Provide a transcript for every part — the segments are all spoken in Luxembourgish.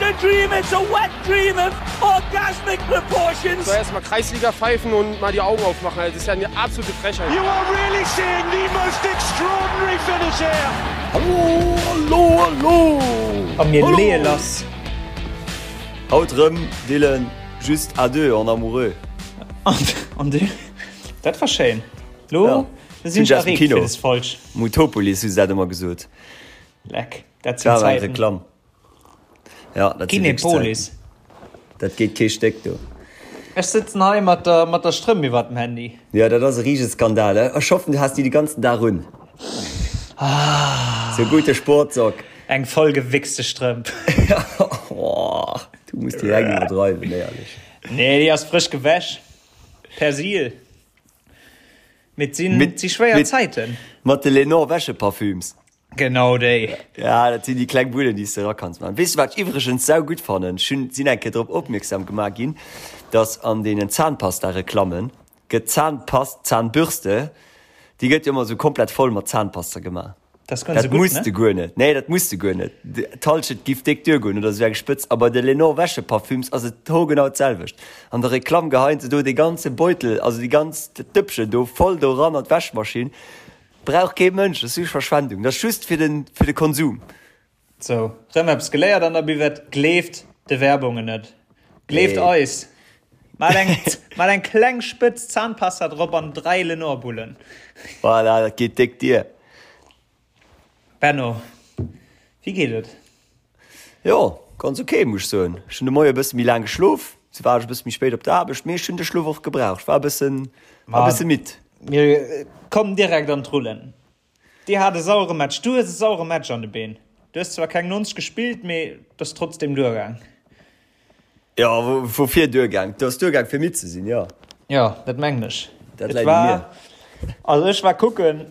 a dream, it's a wet dream of orgasmic proportions. So erstmal Kreisliga pfeifen und mal die Augen aufmachen. Das ist ja eine absolute Frechheit. You are really seeing the most extraordinary finish here. Hallo, hallo, hallo! A mir leeë lass. Haut rëm, Dylan, juste à deux en amoureux. An du? Dat war schéin. Lo sinn ech erreegt fir des Folg. Mutopolis hu se dat ëmmer gesot. Leck, dat sinn Zäiten. Reklamm. Ja, dat sinn wierklech Kinepolis. Zäiten. Dat geet kee Stéck do. Ech sëtzen hei mat der, mat der Strëmp iwwert dem Handy. Ja, dat ass e riesege Skandal. Ech hoffen, du has déi de ganzen Dag un. Ah. Sou gute Sportsock. Eng voll gewichste Strëmp. Oh, du muss direkt iwwerdreiwen, éierlech. Nee, déi ass frësch gewäsch. Persil. Mee et sinn, et si schwéier Zäiten. Mat de Lenor Wäscheparfüms. Genau déi. Ja, dat sinn déi kleng Bullen, déi s de erakanns maachen. Weess de, wat ech iwwregens saugutt fannen? Ech hunn, sinn eng Kéier drop opmierksam gemaach ginn, dass an deenen Zahnpasta-Reklammen gëtt d'Zahnpast, d'Zahnbürste, déi gëtt jo ëmmer esou komplett voll mat Zahnpasta gemaach. Dat ass guer net Dat esou gutt, muss ne? de guer net. Nee, dat muss de guer net. D'Hallschent giff déck duergoen oder esou eng Spëtz. A bei de Lenor Wäscheparfüms ass et hoergenau d'selwecht. An der Reklamm geheien se do dee ganze Beutel, also déi ganz Dëppchen do voll do eran an d'Wäschmaschinn. Brauch kee Mënsch, dat ass just Verschwendung, dat ass just fir den fir de Konsum. Sou, rëm eppes geléiert an der Buvette, gleeft de Werbungen net, gleeft Nee. eis, mat eng mat eng kleng Spëtz Zahnpasta drop an 3 Lenor-Bullen. Voilà, dat geet déck dier. Benno, wéi geet et? Jo, ganz ok, muss ech soen. Ech hunn de Moie e bësse méi laang geschlof, sou war ech e bësse méi spéit op der Aarbecht, mee ech hunn de Schlof och gebraucht. Ech war e bëssen, war e bësse midd. Mir kommen direkt an d'Rullen. Dir hat e sauere Match, du hues e sauere Match an de Been. Du hues zwar keng 90 gespillt, mee et ass trotzdem duergaang. Jo, woufir duergaang? Et ass duergaang fir midd ze sinn, jo. Jo, dat mengen ech. Dat läit u mir. Also ech war kucken.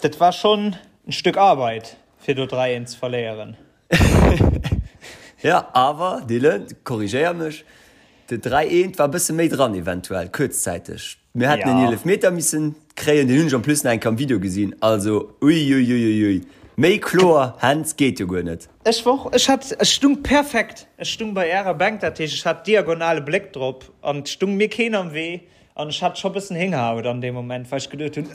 Dat war schonn en Stück Arbeit fir do 3 eent ze verléieren. Jo, awer Dylan, korrigéier mech, de 3 eent war e bësse méi dran eventuell, kuerzzäiteg. Mir hätten en Eelefmeter missen kréien, deen hunn ech en plus nach eng Kéier am Video gesinn, also uiuiuiui, méi kloer Hands geet jo guer net. Ech war och, ech hat, ech stung perfekt, ech stung bei ärer Bänk, dat heescht ech hat diagonale Bléck drop an et stung mir keen am Wee An ech hat scho bëssen Héngerhaut an deem Moment, well ech geduet hunn,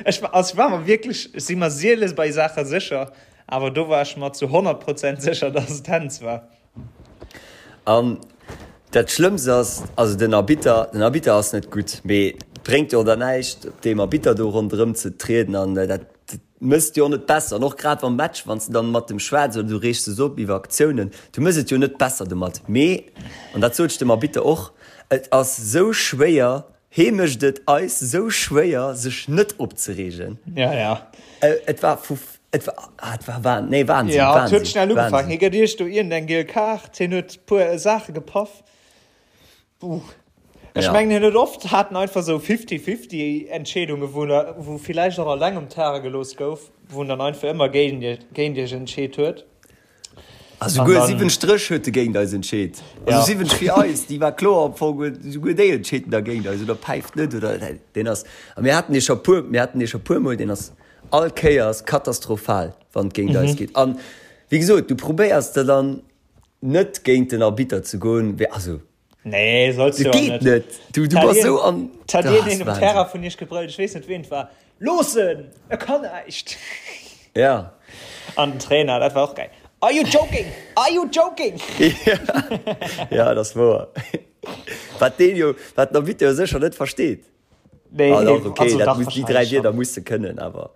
ech war, also ech war mer wierklech, ech si mer siele bei Saache sécher, awer do war ech mer zu 100 Prozent sécher, dass et Händs war. An dat Schlëmmst ass, also den Arbitter, den Arbitter ass net gutt, mee et bréngt jo och dann näischt, op deem Arbitter do ronderëm ze trieden an dat Mëss et jo och net besser, an och grad am Match, wann s de dann mat dem schwätz oder du reegs dech op iwwer Aktiounen, du mëss et jo net besser domat. Mee, an dat sot ech dem Arbitter och, et ass sou schwéier, hee mécht et eis sou schwéier, sech net opzereegen. Ja, ja. Et war vu, et war, ah, et war Wahn, nee, Wahnsinn, Ja, et Wahnsinn, huet schnell ugefaangen. Wahnsinn. Hie gëtt iech do iergendeng giel Kaart, hien huet puer Saache gepaff. Buh. Ech Ja. mengen hien huet oft haten einfach sou fifty-fifty Entscheedungen, wou na, wou villäicht och alleng um Terrain gelooss gouf, wou en dann einfach ëmmer géint iech, géint iech entscheet huet. A An souguer dann, 7 Stréch huet e géint eis entscheet. Also ja. 7 fir eis, déi war kloer am Fong, huet souguer déi entscheet en da géint eis oder päift net oder deen ass, a mir haten dee scho puer, mir haten dee scho puer mol, deen ass all Kéiers katastrophal, wann et géint eis geet. An wéi gesot, du probéiers der dann net géint den Arbitter ze goen, wär, also Nee, solls du dat och geet net. net. Du, du Hat bass een, sou an, hat ah, een ass een um Wahnsinn. Terrain vun iech gebrëllt, ech weess net ween et war, Looss en! E kann näischt! Ja. An den Trainer, dat war och geil, Are you joking? Are you joking? Ja, ja, dat ass wouer. Wat deen jo, wat den Arbitter jo sécher net versteet. Nee, Ah, dach, okay, also dat dach, muss, déi dräi wahrscheinlech Wierder schon. muss de kënnen, awer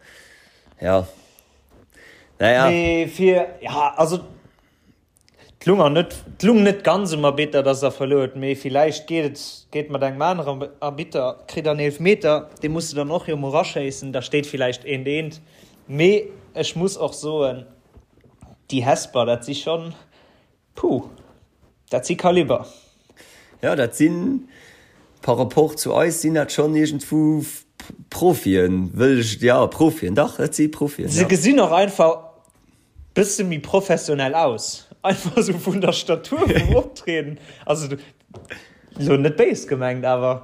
ja. Naja. Mee fir, ja, also 't lung net, 't lung net ganz um Arbitter, dass der verluer huet, mee villäicht geet et, geet mat engem aneren Arbitter, kritt der en Eelfmeter, dee muss de dann och jo mol raschéissen, da steet villäicht eent eent. Mee ech muss och soen, déi Hesper, dat si schonn, puh, dat si Kaliber. Jo, dat sinn, par rapport zu eis, sinn dat schonn iergendwou Profien, wëll ech, jo, Profien, dach, dat si Profien, Se jo. gesinn och einfach Bësse méi professionell aus, einfach sou vun der Statur, vum Optrieden, also lo net béis gemengt, awer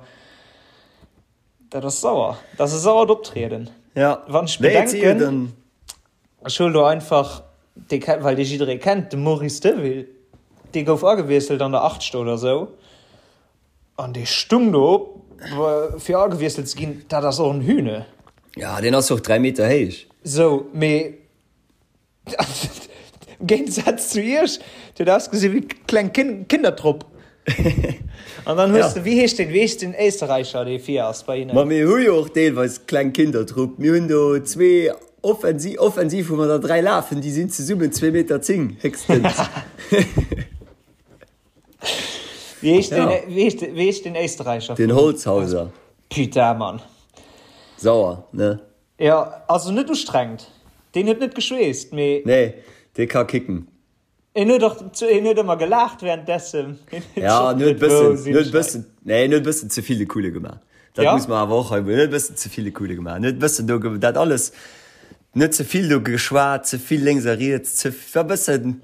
dat ass sauer, dat ass e sauert Optrieden. Ja, Wann ech nee, et si jo bedenken, dann. ech huelen do einfach. dee kennt, well dee jidderee kennt, de Maurice Deville, dee gouf agewiesselt an der 80. Oder sou an dee stung do fir agewiesselt ze ginn, dat ass och en Hühne. Ja, deen ass och 3 Meter héich. Sou, mee Am Géigesaz zu iech, déi huet ausgesi wéi kleng Kindertrupp. An dann hues de, wéi heescht deen, wéi heescht den Éisterräicher, dee vir ass bei hinnen? Ma mir hu jo och deelweis kleng Kindertrupp. Mir hunn do zwee offensiv, offensiv hu mer der 3 lafen, déi sinn zesummen 2 Meter 10 héchstens. Wéi heescht deen, wéi heescht, wéi heescht den Éisterräicher? Den Holzhauser. Putain, Mann. Sauer, ne? Jo, also net ustrengend. Deen huet net geschweesst, mee. Nee, dee ka kicken. En huet och, en huet ëmmer gelaacht währenddessen. Ja, en huet bëssen, en huet bëssen, nee, en huet bëssen ze vill de Coole gemaach. Dat muss mer awer och hei, en huet bëssen ze vill de Coole gemaach. En huet bëssen do, dat alles, net ze vill do geschwat, ze vill lénks a riets, ze, war bëssen,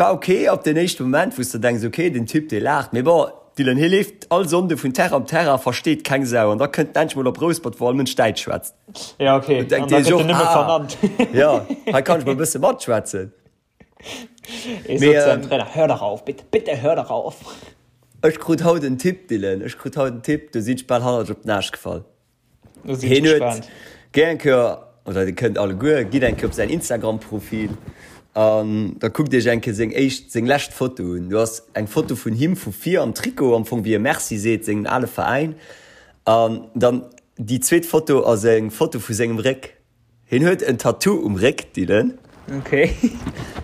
war ok op den éischte Moment, wou s de denks, ok, den Typ, dee laacht, mee bon, Dylan, hie leeft all Sonnde vun Terrain op Terrain, versteet keng Sau an da kënnt en endlech mol op Rouspert, wou all Mënsch Däitsch schwätzt. Ja, ok, an da gëtt en nëmme vernannt. Ja, hei kann ech mol e bësse matschwätzen. Ee sot zu seinem Trainer, Hör doch auf, bitte, bitte hör doch auf! Ech krut haut en Tipp, Dylan, ech krut haut en Tipp, do sinn ech bal hannertech op den Aascht gefall. Hien huet géi eng Kéier, oder dir kënnt alleguer, gitt eng Kéier op säin Instagram-Profil an da kuckt iech eng Kéier seng éischt, seng lescht Foto un. Do ass eng Foto vun him vu vir am Trikot, am Fong wéi e Merci seet sengem ale Veräin. An dann déi zweet Foto ass eng Foto vu sengem Réck. Hien huet en Tattoo um Réck, Dylan. Ok.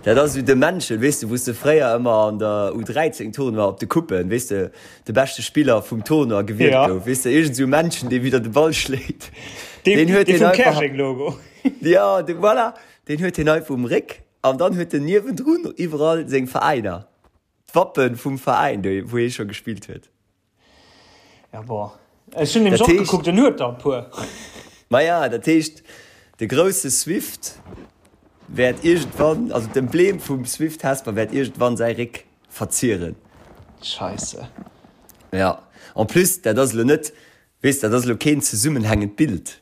Dat ass esou de Männchen, weess de, wou s de fréier ëmmer an der U13 Tournoi op de Coupen, weess de, de beschte Spiller vum Tournoi gewielt ja. gouf. Weess de, iergend esou Männchen, dee widder de Ball schléit. Deen, deen huet dee vum Käerjeng-Logo. Ja, de, voilà. Deen huet hien einfach um Réck an dann huet en niewendrun iwwerall seng Veräiner. D'Wappen vum Veräin, wou hie scho gespillt huet. Ja bon. Ech hunn nämlech och gekuckt, en huet der e puer. Maja, dat heescht, de grousse Swift wäert iergendwann, also d'Emblem vum Swift Hesper wäert iergendwann säi Réck verzieren. Scheisse. Ja, en plus, dat ass elo net, weess, dat ass elo keen zesummenhängend Bild.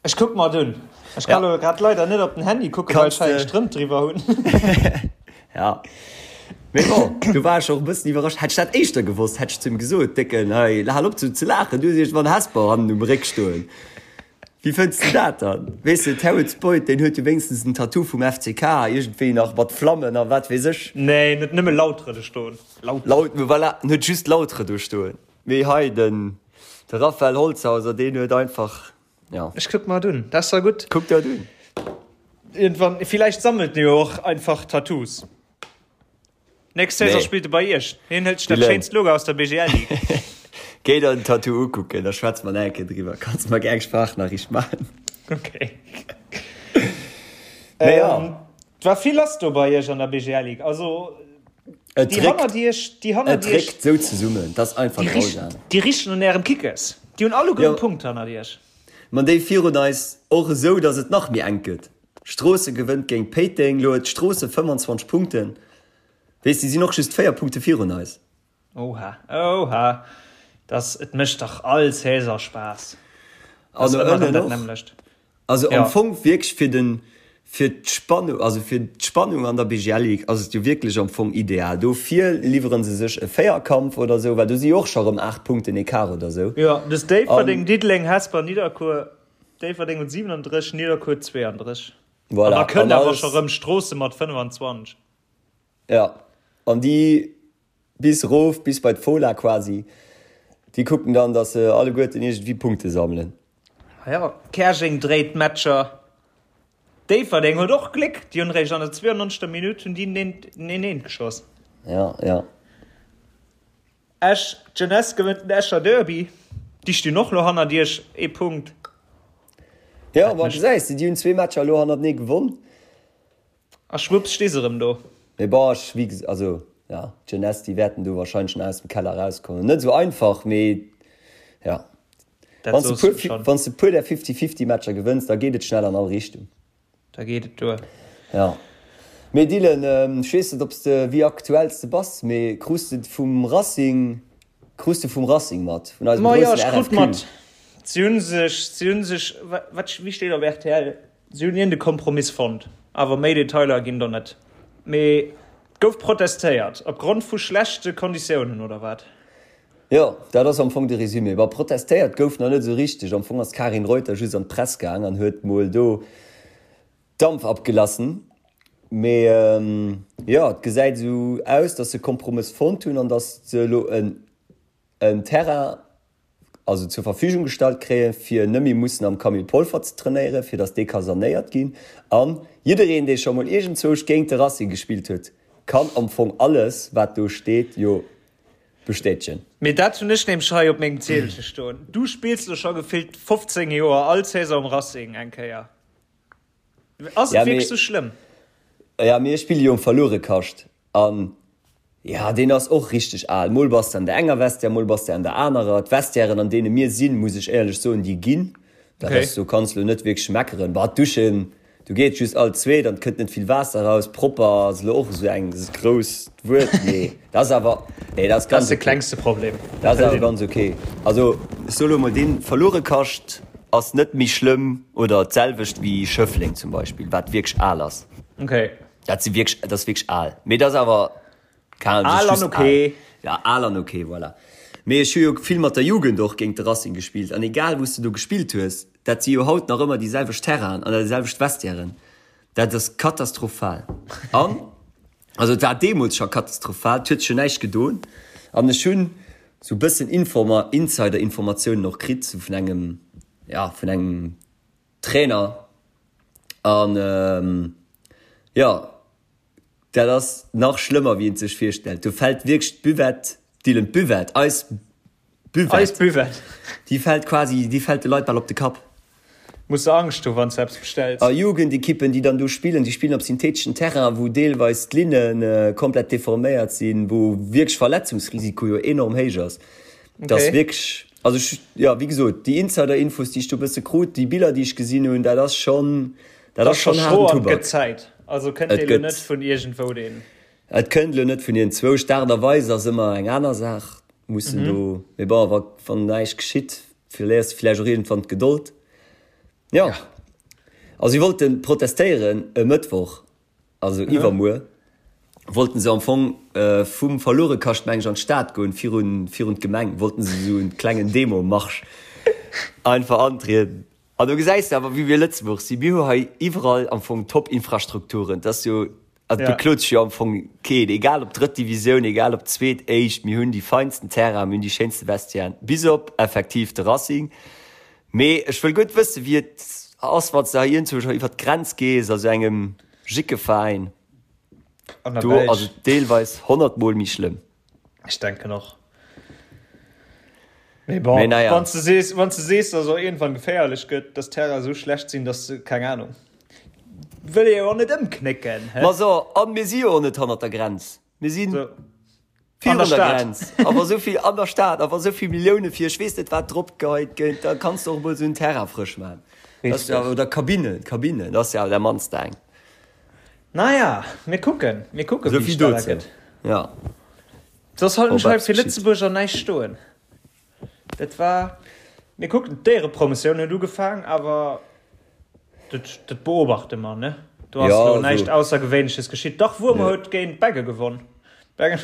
Ech kuck mer et un. Ech kann elo grad leider net op den Handy kucken, well ech hei eng Strëmp driwwer hunn. Ja. Mee bon, do war ech och e bëssen iwwerrascht. Hätt ech dat éischter gewosst, hätt ech zu him gesot, Décken, hei, hal op sou ze laachen, du hues iergendwann Hesper hannen um Réck stoen. Wéi fënns de dat dann? Weess de, Terrence Boyd, deen huet jo wéinstens en Tattoo vum FCK, iergendwéi nach mat Flammen a wat weess ech. Nee, en huet nëmme Lautre do stoen. Lautre. Laut, voilà, en huet just Lautre do stoen. Mee hei den de Raphael Holzhauser deen huet einfach ja. Ech kuck mer et un, dat ass da gutt. Kuck der et un. Iergendwann, villäicht sammelt en jo och einfach Tattoos. Nächst Saison spillt e bei iech. Hien hëlt sech dat schéinst Logo aus der BGL Ligue. Géi der den Tattoo ukucken, da schwätze mer nach eng Kéier driwwer. Kanns mer gär eng Sprachnachricht maachen. Okay. Mee ja. Et war vill lass do bei iech an der BGL Ligue. Also. Et déi hannert iech, déi hannert iech. Et réckt sou zesummen, dat ass einfach grausam. Déi richten un ärem Kickes. Déi hunn alleguer e Punkt hannert iech. Ma déi virun eis och esou, datt et nach méi enk gëtt. Stroossen gewënnt géint Péiteng, lo huet Stroossen 25 Punkten. Weess, déi sinn och just 4 Punkte virun eis. Oha, oha, dass, et mécht dach all Saison Spaass. An no ënnen och. Also am Fong wierklech fir den, fir d'Spannung, also fir d'Spannung an der BGL Ligue ass et jo wierklech am Fong ideal. Dofir liwwere se sech e Véierkampf oder esou, well do si jo och scho rëm 8 Punkten Ecart oder esou. Jo, dus Déifferdeng, Diddeleng, Hesper, Nidderkuer. Déifferdeng huet 37, Nidderkuer 32. Voilà. An da kënnt awer scho rëm Stroossen mat 25. Jo, an déi Bis erof, bis bei d'Fola quasi. Déi kucken dann, datt se alleguerten iergendwéi Punkte sammelen. Jo, Käerjeng dréit d'Matcher. Déifferdeng huet och Gléck, déi hunn eréischt an der 92. Minutt hunn déi den 1, 1 geschoss. Jo, jo. Esch, D'Jeunesse gewënnt den Escher Derby. Déi stinn och elo hannert iech, ee Punkt. Jo, ma gesäis de, déi hunn zwee Matcher elo hannertenee gewonn. A schwupps sti se rëm do. Mee bon, ech, wéi ges-, also ja, d'Jeunesse, déi wäerten do wahrscheinlech nach aus dem Keller erauskommen. Net esou einfach, mee ja. Dat Wann s de soos puer, du schonn. wann s de puer där Fifty-Fifty-Matcher gewënns, da geet et schnell an all Richtung. Da geet et duer. Ja. Mee Dylan, ech weess net, ob s de, wéi aktuell s de bass, mee krus de vum Racing, krus de vum Racing mat, vun eisem Ma jo, groussen ech krut RFQ? mat. Si hunn sech, si hunn sech, wat, wéi steet op rtl? Si hunn iergend e Kompromiss fonnt. Awer méi Detailer ginn do net. Mee et gouf protestéiert opgrond vu schlechte Konditiounen, oder wat? Jo, dat ass am Fong de Résumé. Bon, protestéiert gouf nach net esou richteg. Am Fong ass d'Karin Reuter just an d'Press gaang an huet mol do Dampf abgelassen. Mee jo, et gesäit esou aus, datt se Kompromëss fonnt hunn an datt se elo en en Terrain also zur Verfügung gestallt kréien, fir net méi mussen am Camille Polfer ze trainéieren, fir datt dee ka sanéiert ginn. An jiddereen, dee scho mol iergendzwousch géint de Racing gespillt huet, kann am Fong alles, wat do steet, jo bestätegen. Mee dat hunn ech nämlech hei op mengem Ziedelche stoen. Du spills lo scho gefillt 15 Joer all Saison um Racing eng Kéier. Ass et wierklech sou schlëmm? Ja, mee ech spille jo um Verluerekascht. An jo, deen ass och richteg al. Mol bass de an der enger Vestiaire, mol bass de an der anerer. D'Vestiairen, an deene mir sinn, muss ech éierlech soen, déi ginn. Dat ass, do kanns lo net wierklech meckeren. Bah, d'Duschen, do geet just all zweet an et kënnt net vill Waasser eraus. Propper ass elo och esou eng grousst Wuert, mee dat ass awer, nee, dat ass ganz ok. Dat ass de klengste Problem. Dat ass awer ganz ok. Also, ech soe lo mol, dee Verluerekascht ass net méi schlëmm oder d'selwecht wéi Schëffleng zum Beispill, wat wierklech al ass. Okay. Dat si wierklech, dat ass wierklech al. Mee dat ass awer, keng Ahnung, Al an ok. Ja, al an ok, voilà. Mee ech hu jo vill mat der Jugend och géint de Racing gespillt an egal wou s de do gespillt hues, dat si jo haut nach ëmmer déi selwecht Terrainen an déi selwecht Vestiairen. Dat ass katastrophal. An, also et war deemools scho katastrophal, et huet sech jo näischt gedoen. An ech hunn sou e bëssen Informa, Insider-Informatiounen och kritt, sou vun engem, ja, vun engem Trainer an jo dat ass nach schlëmmer wéi een sech virstellt. Do fält wierklech d'Buvette, Dylan, d'Buvette, eis Buvette, eis Buvette, déi fält quasi, déi fält de Leit bal op de Kapp. Muss de Angscht hu wann s de eppes bestells. A Jugendekippen déi dann do spillen, déi spillen op syntheteschen Terrain wou deelweis d'Linne komplett deforméiert sinn, wou wierklech Verletzungsrisiko jo enorm héich ass. Dat ass wierklech, also ech, jo, wéi gesot, déi Insider-Infos, déi ech do e bësse krut, déi Biller, déi ech gesinn hunn, dat ass schonn, dat ass schonn haarden Tubak. Et gëtt Zäit. Also kënnt dee lo net vun iergendwou, deen. Et kënnt elo net vun iergendzwousch. D'Aart a Weis ass ëmmer eng aner Saach. Mussen do, mee bon, wa, wann näischt geschitt, verléiers de vläicht och iergendwann d'Gedold. Jo, also si wollte protestéieren e Mëttwoch. Also iwwermuer wollten se am Fong vum Verluerekascht meng ech an d'Stad goen, virun virun d'Gemeng wollten se esou en klengen Demo-Marsch einfach antrieden. An do gesäis de awer wéi mir Lëtzebuerg sinn, mir hu hei iwwerall am Fong Top-Infrastrukturen, et ass jo, also et beklot sech jo am Fong keen, egal ob drëtt Divisioun, egal ob zweet, éischt, mir hunn déi feinsten Terrainen, mir hunn déi schéinste Vestiairen, bis op effektiv de Racing. Mee ech wëll guer net wëssen, wéi et ass, wann s de hei iergendwou scho iwwer d'Grenz gees, a sou engem Jickeveräin. An der Do ass Belsch. et deelweis honnertmol méi schlëmm. Ech denken och. Mee bon, Mee naja. wann s de sees, wann s de sees, dass et och iergendwann geféierlech gëtt, dass d'Terrainen esou schlecht sinn, dass se, keng Ahnung, wëll ee jo och net ëmknécken, hä? Ma so, an mir si jo och net hannert der Grenz. Mir sinn. So. Virun der Grenz, a wa sou vill an der Stad, a wa sou vill Millioune fir ech weess net wat drop geheit gëtt, da kanns de och emol sou en Terrain frësch maachen. Dat ass jo, oder Kabinen, Kabinen, dat ass jo awer dat mannst eng. Naja, mir kucken, mir kucken, wéi et weider gëtt. Ja. Soss halten ech hei fir Lëtzebuerger näischt stoen. Dat war, mir kucken, d'Éierepromotioun huet ugefaang, awer dat, dat beobachte mer, ne? Do ass elo näischt Aussergewéinleches geschitt. Dach, Wuermer huet géint Beggen gewonn. Beggen.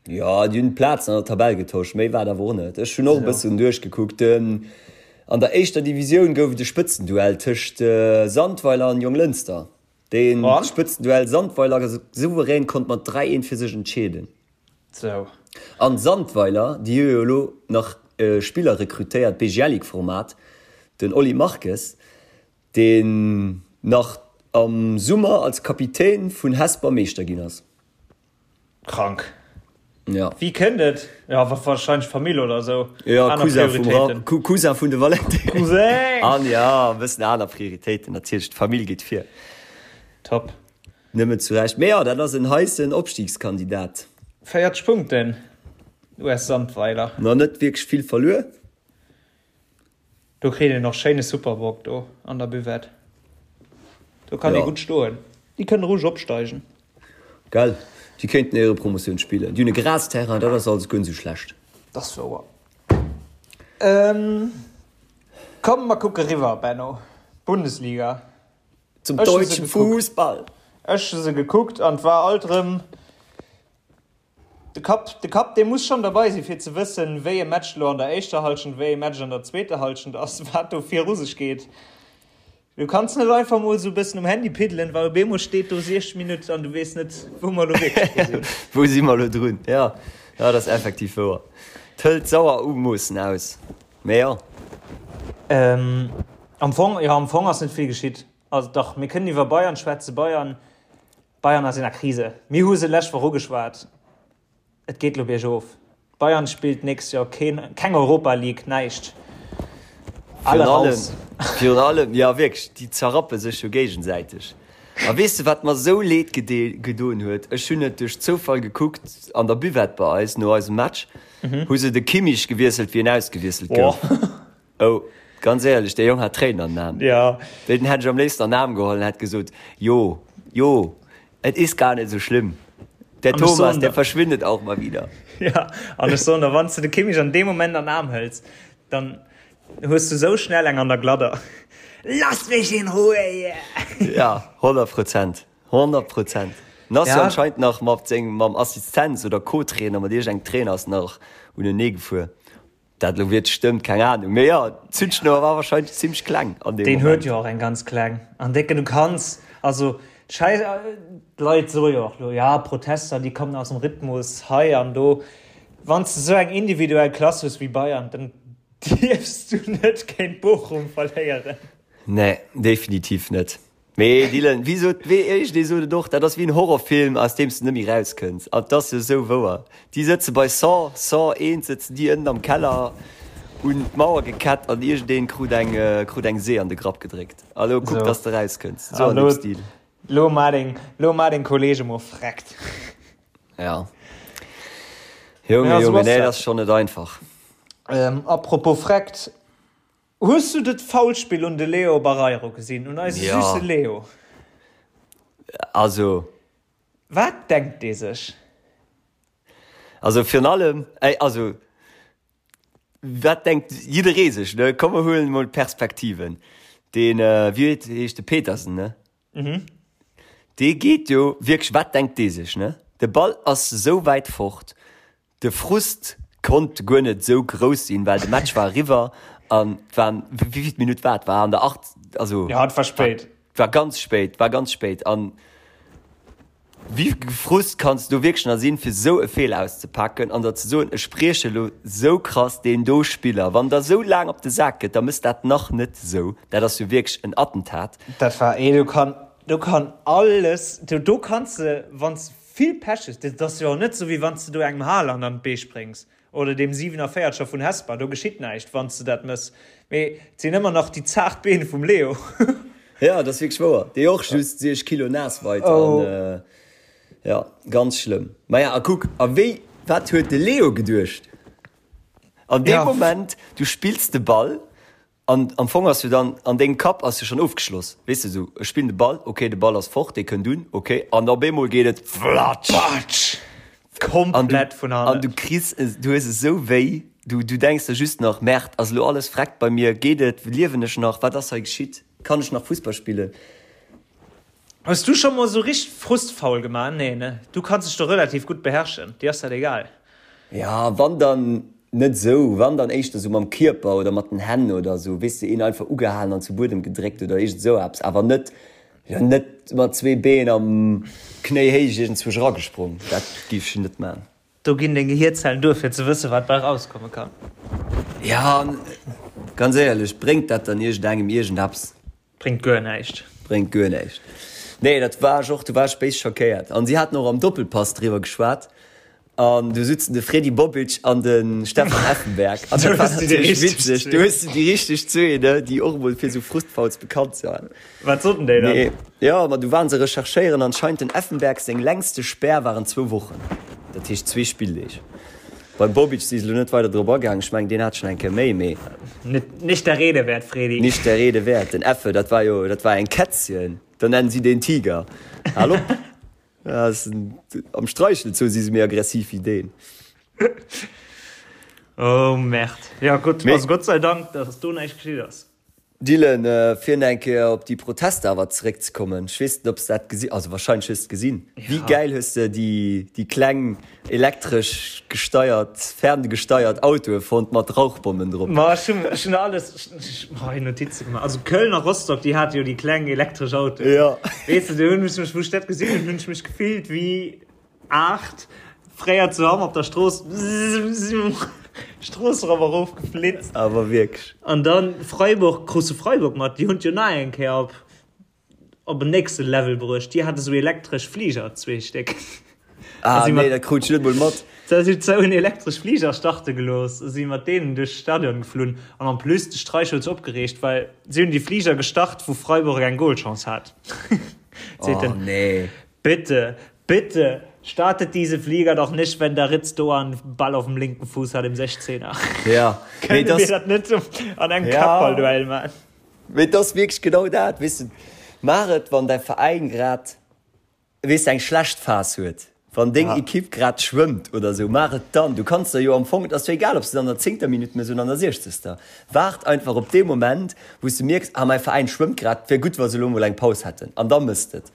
Jo, déi hunn d'Plazen an der Tabell getosch, méi war et awer och net. Ech hunn och e bëssen duerchgekuckt. An der éischter Divisioun gouf et e Spëtzenduell tëscht Sandweiler an Jonglënster. Dee Spëtzenduell Sandweiler souverän konnt mat 3, 1 fir sech entscheeden. Sou. An Sandweiler, déi hu jo elo nach e Spiller rekrutéiert, Bejelic-Format, den Oli Marques, deen nach am Summer als Kapitän vun Hesper Meeschter ginn ass. Krank. Ja. Wéi kënnt et? Ja, wahrscheinlech Famill oder sou. Ja, Cousin vum Ra Cousin vun de Valentin. Cousin! An ja, e bëssen aner Prioritéiten natierlech, d'Famill geet vir. Top. Nëmmen zu Recht. Mee jo, dat ass en heissen Opstiegskandidat. 40 Punkten, US Sandweiler. Nach net wierklech vill verluer. Do kritt een och schéine Superbock do an der Buvette. Do kann ee gutt stoen. Déi kënnen roueg opsteigen. Gell, déi kéinten Éierepromotioun spillen. Déi hunn e Grasterrain, dat ass alles guer net esou schlecht. Dat ass wouer. Komm mer kucke riwwer, Benno. Bundesliga. Zum deutschen Fußball. Ech hu se gekuckt an et war alt erëm de Kapp, de Kapp dee muss schonn derbei sinn, fir ze wëssen, wéi e Match elo an der éischter Hallschent, wéi e Match an der zweeter Hallschent ass, wat do viru sech geet. Du kanns net einfach mol esou e bëssen um Handy piddelen, well op eemol steet do 60 Minutt an du weess net, wou mer elo wierklech dru sinn. Wou si mer elo drun? Jo, jo, dat ass effektiv wouer. Et hëlt sauer Umoossen aus, mee jo. Am Fong, jo, am Fong ass net vill geschitt. Also dach, mir kënnen iwwer Bayern schwätzen. Bayern, Bayern ass in der Krise. Mir hu se lescht Woch ugeschwat. Et geet lo biergof. Bayern spillt d'nächst Joer keen, keng Europa League, näischt. Alle raus. Virun allem, jo wierklech, déi zerrappe sech jo géigesäiteg. A weess de wat mer esou leed gedoen huet? Ech hunn et duerch Zoufall gekuckt an der Buvette bei eis no eisem Match, hu se de Kimmich gewiesselt wéi en ausgewiesselt gouf. Oh, ganz éierlech, dee Jong hat Tréinen an den Aen. Ja. Deen hätt ech am léifsten an den Aarm geholl an hätt gesot, Jo, jo, et ist gar nicht so schlimm. Der An ech Thomas, soen der der, verschwindet auch mal wieder. ja, an ech soen der, wann s de de Kimmich an deem Moment an den Aarm hëls, dann hues du sou schnell eng an der Gladder. Lass mich in Ruhe hier! Ja, 100 Prozent, 100 Prozent. En ass jo Ja, anscheinend nach mat sengem, mam Assistenz oder Co-Trainer, mat iergendengem Trainer ass en nach unenee gefuer. Dat elo wierklech stëmmt, keng Ahnung. Mee jo, d'Zündschnouer war wahrscheinlech zimmlech kleng an deem Deen huet Moment. jo och eng ganz kleng. An décken, du kanns, also d'Schäiss, d'Leit soe jo och elo, ja, Protester, déi kommen aus dem Rhythmus hei an do. Wann s de esou eng individuell Klass hues wéi Bayern, dann dierfs du net géint Bochum verléieren. Nee, definitiv net. Mee Dylan, wéi sot, wéi iergendee sot et och, dat ass wéi en Horrorfilm, aus deem s de net méi rauskënns. An 't ass jo esou wouer. Déi sëtze bei Saw, Saw 1 sëtzen déi ënnen am Keller un d'Mauer gekett an iergendeen krut eng, krut eng See an de Grapp gedréckt. A lo kuck, dass de rauskënns. Esou an deem Stil. Lo maa deng, lo maa deng Kolleege mol freckt. Ja. Junge, Junge, nee, dat ass schonn net einfach. Apropos freckt. Hues du dat Foulspill un de Leo Barreiro gesinn? Un eise ja. süsse Leo? Also. Wat denkt dee sech? Also virun allem, ey, also wat denkt jidderee sech, ne? Komm mer huelen emol d'Perspektiven. Deen, wéi heescht de Petersen, ne? Mhm. Dee geet jo wierklech, wat denkt dee sech, ne? De Ball ass esou wäit fort, De Frust konnt guer net esou grouss sinn, well de Match war eriwwer an et waren, wéivill Minutt war et? War an der 8, also Ja, et war spéit. war ganz spéit, war ganz spéit. An wéi Frust kanns du wierklech nach sinn, fir esou e Feeler auszepaken an der ze soen, ech brieche elo esou krass deen do Spiller. Wann der esou laang op de Sak gëtt, da mëss dat nach net esou. Dat ass jo wierklech en Attentat. Dat war, ee, do kann, do kann alles, do, do kanns de, wann s Vill Pech hues. Dat ass jo och net sou wéi wann s de do engem Haaland an d'Bee spréngs oder deem 47er vun Hesper. Do geschitt näischt wann s de dat mëss. Mee et sinn ëmmer nach déi zaart Been vum Leo. Jo, dat ass wierklech wouer. Dee och just 6 Kilo naass weit an jo, ganz schlëmm. Maja, a kuck, a wéi, wat huet de Leo geduecht an deem Moment? Du spills de Ball An am Fong ass jo dann, an dengem Kapp ass jo schonn ofgeschloss, weess de, esou, ech spillen de Ball, ok, de Ball ass fort, dee kënnt un, ok, an op eemol geet et flatsch! Patsch! Komplett vun hannen. An du kriss, du hues esou wéi, du, du denks der just nach, Merde, ass elo alles vreckt bei mir, geet et, liewen ech nach, wat ass hei geschitt, kann ech nach Fussball spillen? Hues du scho mol esou richteg Frustfoul gemaach? Nee, ne? Du kanns dech do relativ gutt beherrschen, dir ass dat egal. Ja, wann dann net esou, wann dann éischter esou mam Kierper oder mat den Hänn oder esou, weess de, een einfach ugehalen an zu Buedem gedréckt oder iergend esou eppes, awer net, jo, net mat zwee Been am Knéihéich iergendzwousch eragesprong, dat géif ech net man. Do ginn deng Gehierzellen duer fir ze wëssen, wat bei rauskomme kann. Ja, an ganz éierlech, bréngt dat dann iergendengem iergendeppes? Bréngt guer näischt. Bréngt guer näischt. Nee, dat war ech och, do war ech béis schockéiert. An si haten och am Doppelpass driwwer geschwat. An do sutzen de Fredy Bobic an de Stefan Effenberg. An dat war natierlech witzeg. Do hues de déi richteg zwee, ne, déi och emol fir esou Frustfouls bekannt waren. Wat soten déi dann? Nee, jo, ma du waren se recherchéieren. Anscheinend den Effenberg seng längste Spär waren zwou Wochen. Dat heescht zwee Spilldeeg. Beim Bobic si se elo net weider drop agaang. Ech mengen, deen hat schonn eng Kéier méi, mee. Net, nicht der Rede wert, Fredy. Nicht der Rede wert. Den Effe, dat war jo, dat war eng Kätzchen. Da nennen si deen Tiger. Hal op! Dat ass en, am Streichelzoo si se méi aggressiv wéi deen. Oh Merde. Ja gutt, also Gott sei Dank, dass do näischt geschitt ass. Dylan, fir nach eng Kéier op déi Protester awer zeréckzekommen, ech weess net, ob s de dat gesi, also wahrscheinlech hues de et gesinn. Wéi gäil hues de déi, déi kleng elektresch gesteiert, ferngesteiert Autoe fonnt mat Rauchbommen drop? Ma ech hunn, ech hunn alles, ech hu hei Notize gemaach. Also Köln a Rostock, déi hate jo déi kleng elektresch Autoen. Jo. Weess de, do hunn ech mech, wou ech dat gesinn hunn, hunn ech mech gefillt wéi 8, fréier zu Hamm op der Strooss, Strooss erop a rof geflitzt. Awer wierklech. An dann Freiburg, krus de Freiburg mat? Déi hunn et jo nach eng Kéier op op en nächste Level bruecht. Déi hate sou elektresch Fliger, zwee Stéck. Ah nee, dat krut ech net mol mat. Da si zou en elektresch Fliger starte gelooss a si mat deenen duerch d'Stadion geflunn. An en plus, de Streich huet sech opgereegt, well si hunn déi Fliger gestart, wou Freiburg eng Golchance hat. Seet en. Oh nee. Bitte, bitte, startet diese Flieger doch nicht, wenn der Ritz Doan Ball auf dem linken Fuß hat im 16er. Ja. Kënne mir dat net an engem ja. Kappballduell man? Mee et ass wierklech genau dat, weess de, maach et, wann däi Veräin grad, weess de, eng schlecht Phas huet, wann deng Ja. Ekipp grad schwëmmt oder esou, maach et dann. Du kanns der jo am Fong, et ass jo egal, ob s de et an der zéngter Minutt méchs oder an der siechzegster. Waart einfach op dee Moment, wou s de mierks, ah, mäi Veräin schwëmmt grad, et wär gutt, wa se elo mol eng Paus hätten, an da méchs de et.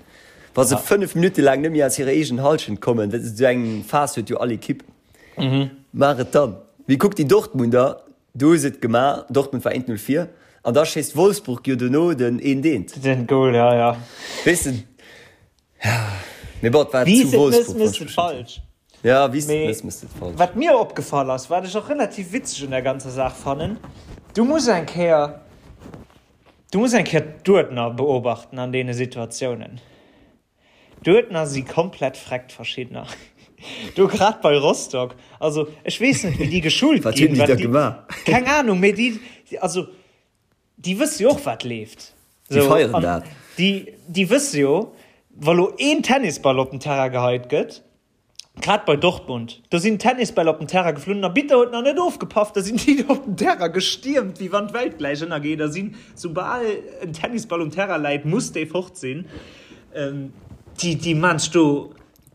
Wa se 5 Minutte laang net méi aus hirer eegenen Hallschent kommen, dat esou eng Phas huet jo all Ekipp, maach et dann. Mee kuck déi Dortmunder, do hu se et gemaach, Dortmund war 1-0 vir an da schéisst Wolfsburg jo dono den eent eent. Den Goal, ja, ja. Weess de, ja, mee bon, et war Wéi zu s et Wolfsburg, mëss, mëss wann et ech mech net falsch. Ja, wéi s et Mee mëss, mëss et falsch. wat mir opgefall ass, wat ech och relativ witzeg un der ganzer Saach fannen, du muss eng Kéier, Du muss eng Kéier d'Uerdner beobachten an deene Situatiounen. D'Uerdner si komplett freckt, verschiddener. Do grad bei Rostock, also ech weess net wéi déi geschult Wat hunn ginn, déi wat da déi, gemaach? keng Ahnung, mee déi, also déi wësse jo och wat leeft. Déi Sou, feieren an dat. déi, déi wësse jo, wa lo een Tennisball op den Terrain geheit gëtt, Grad bei Dortmund, do sinn Tennisbäll op den Terrain geflunn, den Arbitter huet nach net ofgepaff, da sinn déi op den Terrain gestiermt, wéi wann d'Welt gläich ënnergeet a sinn, soubal en Tennisball um Terrain läit, muss dee fort sinn. Déi, déi maan sech do,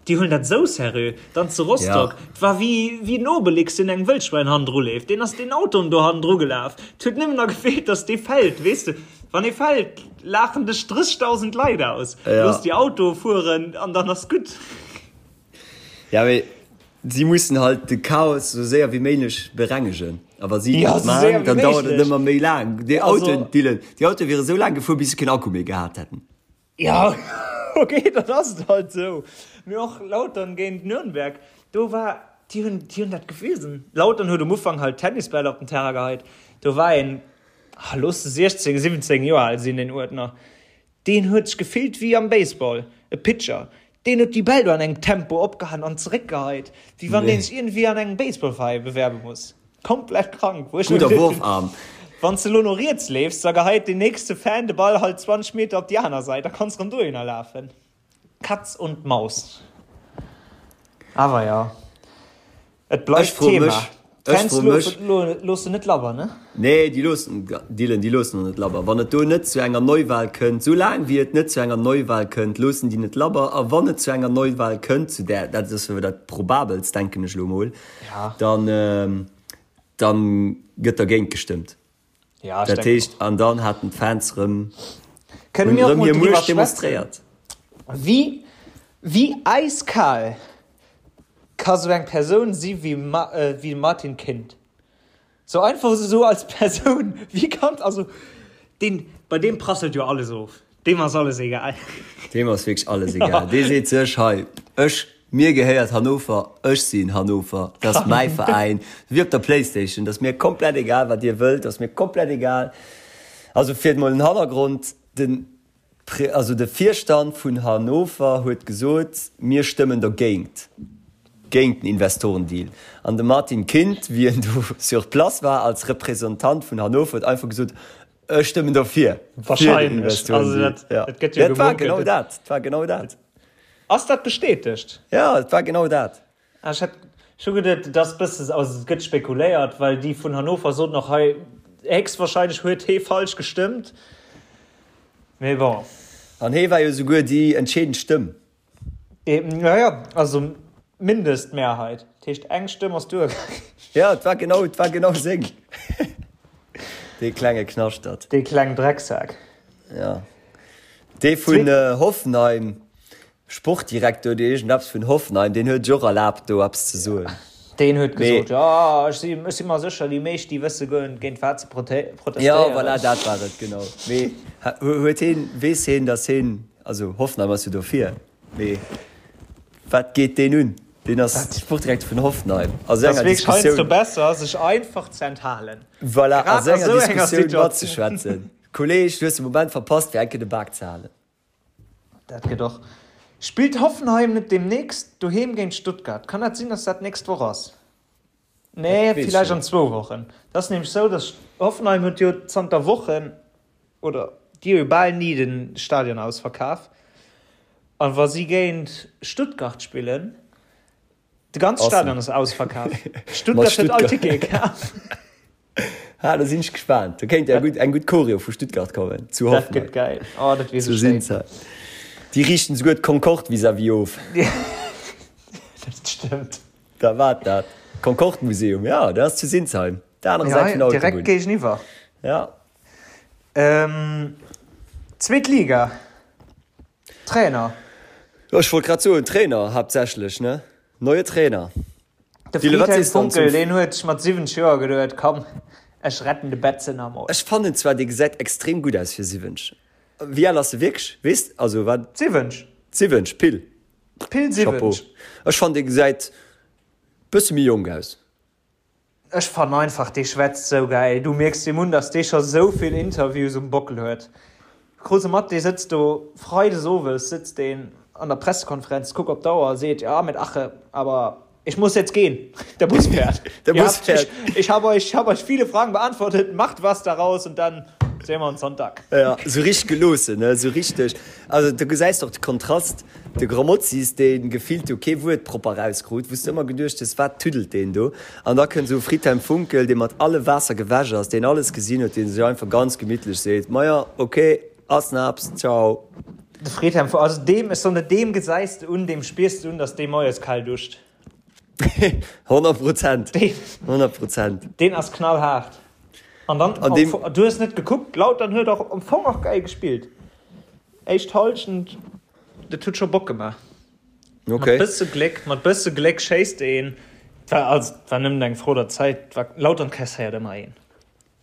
déi huelen dat esou seriö. Dann zu Rostock, et war wéi, wéi den Obelix, deen engem Wëllschwäin hannendru leeft, deen ass den Autoen do hannendru gelaf, et huet nëmmen nach gefeelt, dass dee fält, weess de, wann ee fält, laachen dech 30.000 Leit aus, looss déi Autoe fueren an dann ass gutt. Ja, mee si mussen halt de Chaos sou séier wéi méiglech berengegen. A wa si Ja, dat sou séier maan, wéi dann dauert et méiglech. ëmmer méi laang. Déi Also. Autoen, Dylan, déi Autoe wiere sou laang gefuer, bis se keen Akku méi gehat hätten. Ja, okay, dann ass et halt sou. Mee och Lautern géint Nürnberg, do war, déi hunn, déi hunn dat gewisen. Lautern huet um Ufank halt Tennisbäll op den Terrain geheit. Do war een, ah, looss se 16, 17 Joer al sinn, deen Uerdner. Deen huet sech gefillt wéi am Baseball, e Pitcher. Deen huet déi Bäll do an engem Tempo opgehaen an zeréckgeheit, wéi wann deen sech iergendwéi an engem Baseballveräi bewerbe muss. Komplett krank, wou ech mir Gudder geduecht hunn, Wurfarm. Wann s de elo no riets leefs, da geheit deen nächste Fan de Ball halt 20 Meter op déi aner Säit, da kanns rëm dohinner lafen. Katz und Maus. Awer jo. Et Ech bleift froe Thema. mech, ech D'Fans froe mech. loossen net labber, ne? Nee, déi loossen, Dylan, déi loossen och net labber. Wann et do net zu enger Neuwahl kënnt, sou laang wéi et net zu enger Neuwahl kënnt, loossen déi net labber. A wann et zu enger Neuwahl kënnt, zu där, dat ass jo dat probabelst, denken ech elo mol, Ja. dann, dann gëtt dergéint gestëmmt. Ja, ech Dat denken heescht, och. an dann haten d'Fans rëm, Kënne hunn mir och rëm mol hir driwwer Muecht schwätzen, demonstréiert. wéi, wéi äiskal ka sou eng Persoun si wéi wéi de Martin Kind? Sou einfach esou als Persoun, wéi kann, also deen, bei deem prasselt jo alles of. Deem ass alles egal. Deem ass wierklech alles egal. Dee seet sech, hei, ech, mir gehéiert Hannover, ech sinn Hannover, dat ass mäi Veräin. Wéi op der Playstation, dat ass mir komplett egal, wat Dir wëllt, dat ass mir komplett egal. Also fir emol den Hannergrond, den Pre, also de Virstand vun Hannover huet gesot, mir stëmmen dergéint, géint den Investorendeal. An de Martin Kind, wéi en do sur place war als Representant vun Hannover, huet einfach gesot, Ech stëmmen dofir. Wahrscheinlech. Also dat, ja. dat gëtt jo Dat war gemunkelt. genau dat. Dat war genau dat. Ass dat bestätegt? Ja, et war genau dat. Ah, ech hat scho geduet, et ass bësse, also et gëtt spekuléiert, well déi vun Hannover soten och hei, héchstwahrscheinlech huet hee falsch gestëmmt. Mee bon. An hee war jo souguer déi entscheedend Stëmm. Ja, ja, also Mindestmehrheit. Dat heescht, eng Stëmm ass duergaangen. Ja, et war genau, et war genau seng. Dee klenge Knaschtert. Dee klengen Drecksak. Ja. Dee vun Hoffenheim, Sportdirektor oder iergendeppes vun Hoffenheim, deen huet sech och erlaabt, do eppes ze soen. Deen huet gesot, jo, ech si, ech si mer sécher, déi meescht, déi wësse guer net, géint wat se protestéieren. Jo, voilà, dat war et, genau. Mee huet heen, weess heen, datt heen, also Hoffenheim ass jo dofir, mee wat geet deen un? Deen ass Sportdirektor vun Hoffenheim. A sou enger Diskussioun. Et ass wierklech heiansdo besser, sech einfach ze enthalen. Voilà, a sou enger Diskussioun matzeschwätzen. Kolleg, du hues de Moment verpasst, fir eng Kéier de Bak ze halen. Dat gëtt och. Spillt Hoffenheim net deemnächst doheem géint Stuttgart? Kann dat sinn, dass dat d'nächst Woch ass? Nee, villäicht an zwou Wochen. Dat ass nämlech sou, dass Hoffenheim huet jo zanter Wochen, oder déi hu jo bal ni de Stadion ausverkaf. A wa si géint Stuttgart spillen, de ganze Stadion ass ausverkaf. Stuttgart huet all Tickete kaf. Ha, da sinn ech gespaant. Do kéint ja gutt eng gutt Choreo vu Stuttgart kommen zu Hoffenheim. Dat gëtt gäil. Oh, dat wier sou schéin. Déi riichten souguer d'Concorde vis-à-vis of. Dat stëmmt. Da wat dat? Concorde Museum, ja, dat ass zu Sinsheim, der anerer Säit vun der Autobunn. Direkt géigeniwwer. Ja. Ähm, zweet Liga. Trainer. Jo, ech wollt grad soen, Trainer haaptsächlech, ne? Neue Trainer. De Friedhelm Funkel, deen huet sech mat 70 Joer geduet, komm, ech retten de Betze nach mol. Ech fannen zwar, dee gesäit extrem gutt aus fir 70. Wéi al ass e wierklech? Weess, also wat? 70. 70, pill. Pill 70. Chapeau. Ech fannen, dee gesäit bësse méi jonk aus. Ech fannen einfach dee schwätzt sou gäil, du mierks deem un dass dee scho sou vill Interviews um Bockel huet. Krus e mat, dee sëtzt do Freides owes sëtzt deen an der Pressekonferenz, kuck op d'Auer a seet, ja mit Ache, aber ich muss jetzt gehen, der Bus fährt. Der Bus fährt. Ich, ich habe euch, ich habe euch viele Fragen beantwortet, macht was daraus und dann sehen wir uns Sonntag. Ja, sou richteg geloossen, ne, sou richteg. Also du gesäis och de Kontrast, de Grammozis, dee gefillt do kee Wuert propper erauskrut, wou s de ëmmer geduecht hues, wat tüddelt deen do? An da kënnt esou e Friedhelm Funkel, dee mat alle Waasser gewäsch ass, deen alles gesinn huet, dee sech einfach ganz gemittlech seet, Maja, ok, ass naps, ciao. De Friedhelm Funkel, also deem, ech soen der, deem gesäis de un, deem spiers de un, datt dee moies kal duscht. 100 Prozent, 100 Prozent. Deen ass knallhaart. An dann, An deem, du hues net gekuckt, Lautern huet och am Fong och geil gespillt. Éischt Halschent, dat huet scho Bock gemaach. Okay. Mat bësse Gléck, mat bësse Gléck schéisst een. Et war, also, et war nëmmen eng Fro der Zäit. War, Lautern kasséiert ëmmer een.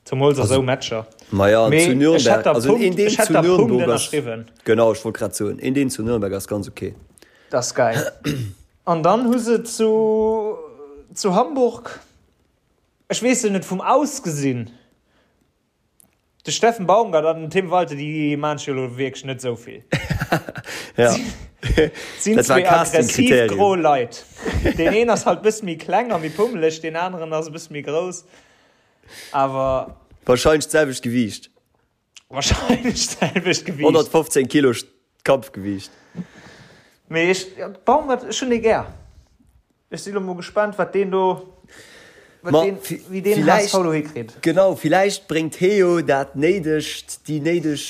Zemools a sou Matcher. Maja, an Mee zu ech Nürnberg, hätt der also Punkt, een deen ech hätt zu der Punkt Nürnberg ass, ënnerschriwwen. genau, ech wollt grad soen, een deen zu Nürnberg ass ganz okay. Dat ass geil. An dann hu se zu, zu Hamburg, ech weess jo net vum Ausgesinn, De Steffen Baumgart an den Tim Walter, déi maan sech jo elo wierklech net esou vill. Ja. Sinn Dat war zwee aggressiv Casting-Kriterium. gro Leit. Deen een ass halt bësse méi kleng a méi pummeleg, deen aneren ass e bësse méi grouss. Awer. Wahrscheinlech d'selwecht Gewiicht. Wahrscheinlech d'selwecht Gewiicht. 115 Kilo Kampfgewiicht. Mee ech, Baumgart, ech hunn dee gär. Ech si lo mol gespaant, wat deen do, wat Ma deen, wéi deen villäicht, HSV do hikritt. genau, villäicht bréngt hee jo dat néidegt, déi néideg,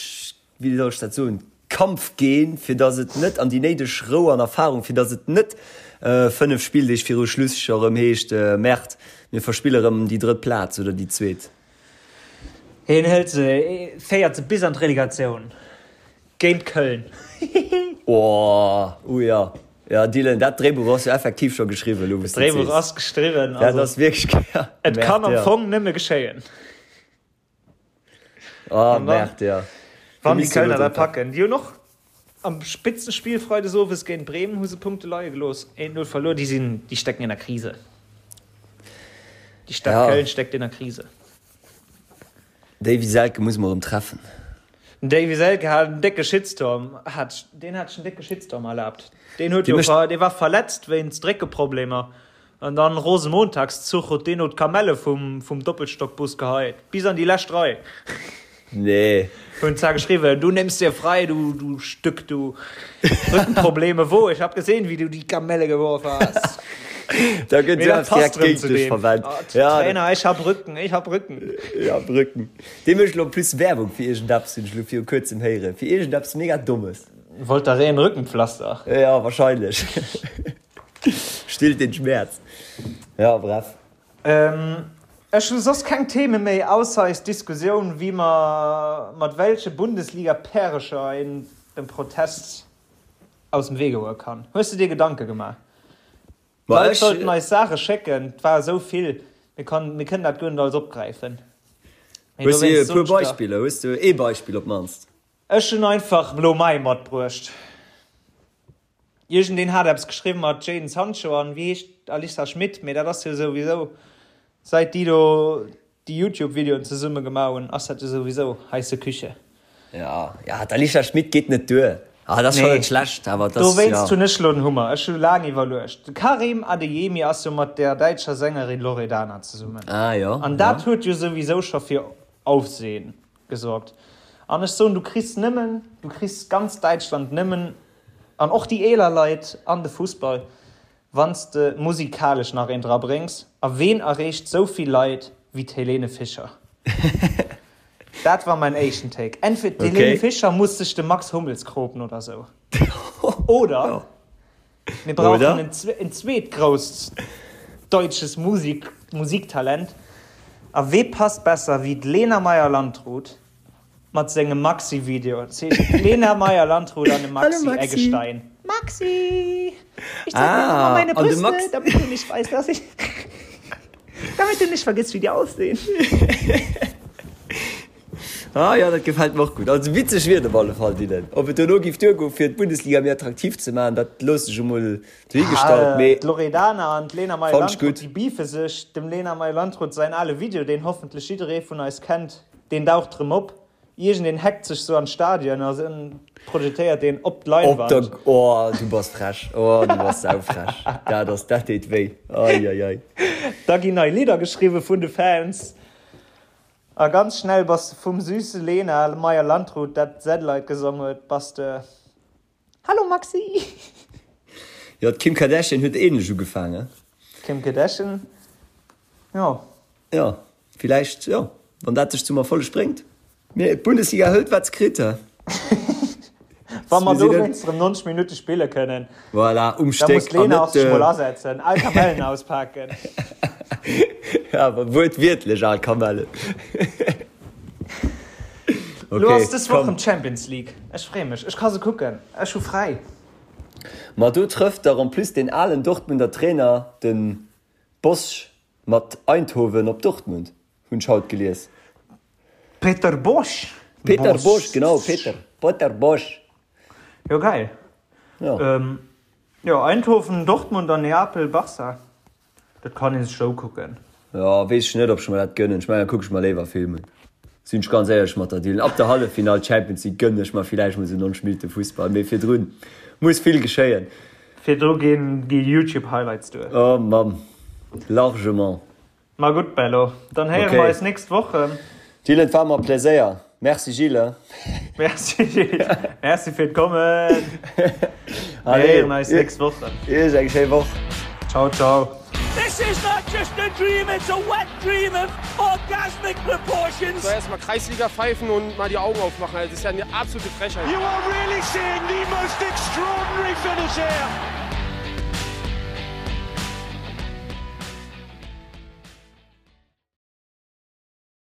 wéi soll ech dat soen, Kampfgen, fir datt et net, an déi néideg Rou an Erfahrung, fir datt et net 5 Spilldeeg viru Schluss scho rëm heescht, Merde, mir verspille rëm déi drëtt Plaz oder déi zweet. Hien hëlt se, féiert se bis an d'Relegatioun géint Köln. Hihihi. Oh, uh ja. Ja, Dylan, dat Dréibuch ass jo effektiv scho geschriwwen, elo wou s de et D'Dréibuch sees. ass geschriwwen, Dat also ass wierklech, ja, et kann Merde, am ja. Fong nëmme geschéien. Ah, An dann, Merde, ja. Do wann déi misst jo elo Kölner dat drun packen, déi hunn och am Spitzenspiel freides owes géint Bremen hu se Punkte leie gelooss, 1-0 verluer, déi sinn, déi stecken in der Krise. Déi Stad Ja. Köln steckt in der Krise. Davy Selke muss mer erëm treffen. Den Davy Selke hat en décke Shitstorm, hat, deen hat sech en décke Shitstorm erlaabt. Deen huet Dee jo, mécht. dee war verletzt wéinst Réckeproblemer an dann Rosenmontagszuch huet deen no d'Kamelle vum, vum Doppelstockbus geheit, bis an déi lescht Rei. Nee. Hun zwar geschriwwen, du nimmst dir frei, du, du Stück, du. Rückenprobleme, wo? Ich hab gesehen, wie du die Kamelle geworfen hast. Da gëtt Mee jo dat eppes direkt passt rëm géint zu dech deem. verwennt. Oh, Ja, dat, Trainer, ich hab Rücken, ich hab Rücken. ja, Rücken. Dee mécht elo en plus Werbung fir iergendeppes, hunn ech elo viru kuerzem héieren. Fir iergendeppes mega Dommes. Voltaren Rückenpflaster. Ja, wahrscheinlech. Stillt den Schmerz. Ja, bref. Ähm. Ech hu soss keng Theme méi, ausser eis Diskussioun, wéi mer mat welche Bundesliga-Pärecher een dem Protest aus dem Wee goe kann. Hues de dir Gedanke gemaach? D'Leit sollten eis Saache schécken, et war esou vill, mir kann, mir kënnen dat guer net alles opgräifen. Mee Hues du e puer Beispiller? Hues du ee Beispill op d'mannst? Ech hunn einfach elo mäi matbruecht. Iergendeen hat eppes geschriwwen mat Jadon Sancho an wéi heescht Alissa Schmit, mee dat ass jo souwisou säit déi do déi Youtube Videoen zesumme gemaach hunn ass dat jo souwisou heisse Küche. Jo, jo, d'Alicia Schmit geet net duer. Ah, dat ass schonn net schlecht, awer dat ass, jo. Dowéinst hunn ech elo den Hummer. Ech hu laang iwwerluecht. De Karim Adeyemi ass jo mat der däitscher Sängerin Loredana zesummen. Ah, jo, An dat huet jo souwisou scho fir Aufsehen gesorgt. An ech soen, du kriss nëmmen, du kriss ganz Däitschland nëmmen, an och déi eeler Leit an de Fussball, wann s de musikalesch nach een dra bréngs. A ween erreecht sou vill Leit wéi d'Helene Fischer? Dat war mäin éischten Take. Entweder d'Helene Fischer muss sech de Max Hummels kropen oder sou. Oder mir brauchen en zweet grousst deutsches Musik Musiktalent. A wee passt besser wéi d'Lena Meyer-Landrut mat sengem Maxi-Video? Dat heescht d'Lena Meyer-Landrut an de Maxi Eggestein. Maxi! Ich zeig dir nochmal meine Brüste, damit du nicht weißt, dass ich. Damit du nicht vergisst, wie die aussehen. Ah jo, dat gefält mer och gutt. Also witzeg wier et op alle Fall, Dylan. Ob et dono giff duergoen, fir d'Bundesliga méi attraktiv ze maachen, dat loosse ech emol dohigestallt, mee D'Loredana an d'Lena Meyer-Landrut, déi beefe sech. Dem Lena Meyer-Landrut säin ale Video, deen hoffentlech jidderee vun eis kennt, deen daucht rëm op. Iergendeen hackt sech sou an d'Stadion a projetéiert deen op d'Leinwand. Op der, oh du bass frech, oh du bass saufrech. Dat ass, dat deet wéi, ei ei ei. Da ginn nei Lidder geschriwwe vun de Fans. A ganz schnell bass de vum süße Lena Meyer-Landrut, dat Satellite gesong huet, bass de Hallo Maxi! Jo, d'Kim Kardashian huet ähnlech ugefaangen. D'Kim Kardashian, jo. Jo, villäicht, jo, wann dat dech zum Erfolleg bréngt. Mee d'Bundesliga hëlt wat se kritt, he. Wa mer dowéinst erëm 90 Minutte spille kënnen. Voilà, um Stéck. Da muss d'Lena och sech mol asetzen, al Kamellen auspaken. Ja, awer wuertwiertlech al Kamellen. Lo ass dës Woch rëm d'Champions League. Ech freeë mech, ech ka se kucken, ech hu fräi. Ma do trëfft dach en plus deen alen Dortmunder Trainer, de Bosz, mat Eindhoven op Dortmund, hunn ech haut gelies. Peter Bosz? Peter Bosz, genau, Peter, Peter Bosz. Jo, geil. Jo. Jo, Eindhoven, Dortmund an Neapel, Barça. Dat kann een sech ukucken. Jo, weess ech net ob ech mer dat gënnen. Ech mengen da kuck ech mer léiwer Film un. Sinn ech ganz éierlech mat der Dylan. Ab der Halleffinall Champions League gënnen ech mer villäicht mol sou 90 Minutte Fussball, mee virdrun muss vill geschéien. Virdru ginn déi Youtube Highlights duer. Oh Mamm, largement. Ma gutt Bello, dann héiere mer eis nächst Woch rëm. Dylan, et war mer e Pläséier. Merci Gilles. Merci Gilles, merci fir d'Kommen. Mir héieren eis nächst Woch rëm. Iech eng schéi Woch. Ciao ciao. This is not just a dream, it's a wet dream of orgasmic proportions. So erstmal Kreisliga pfeifen und mal die Augen aufmachen, das ist ja eine absolute Frechheit. You are really seeing the most extraordinary finish here.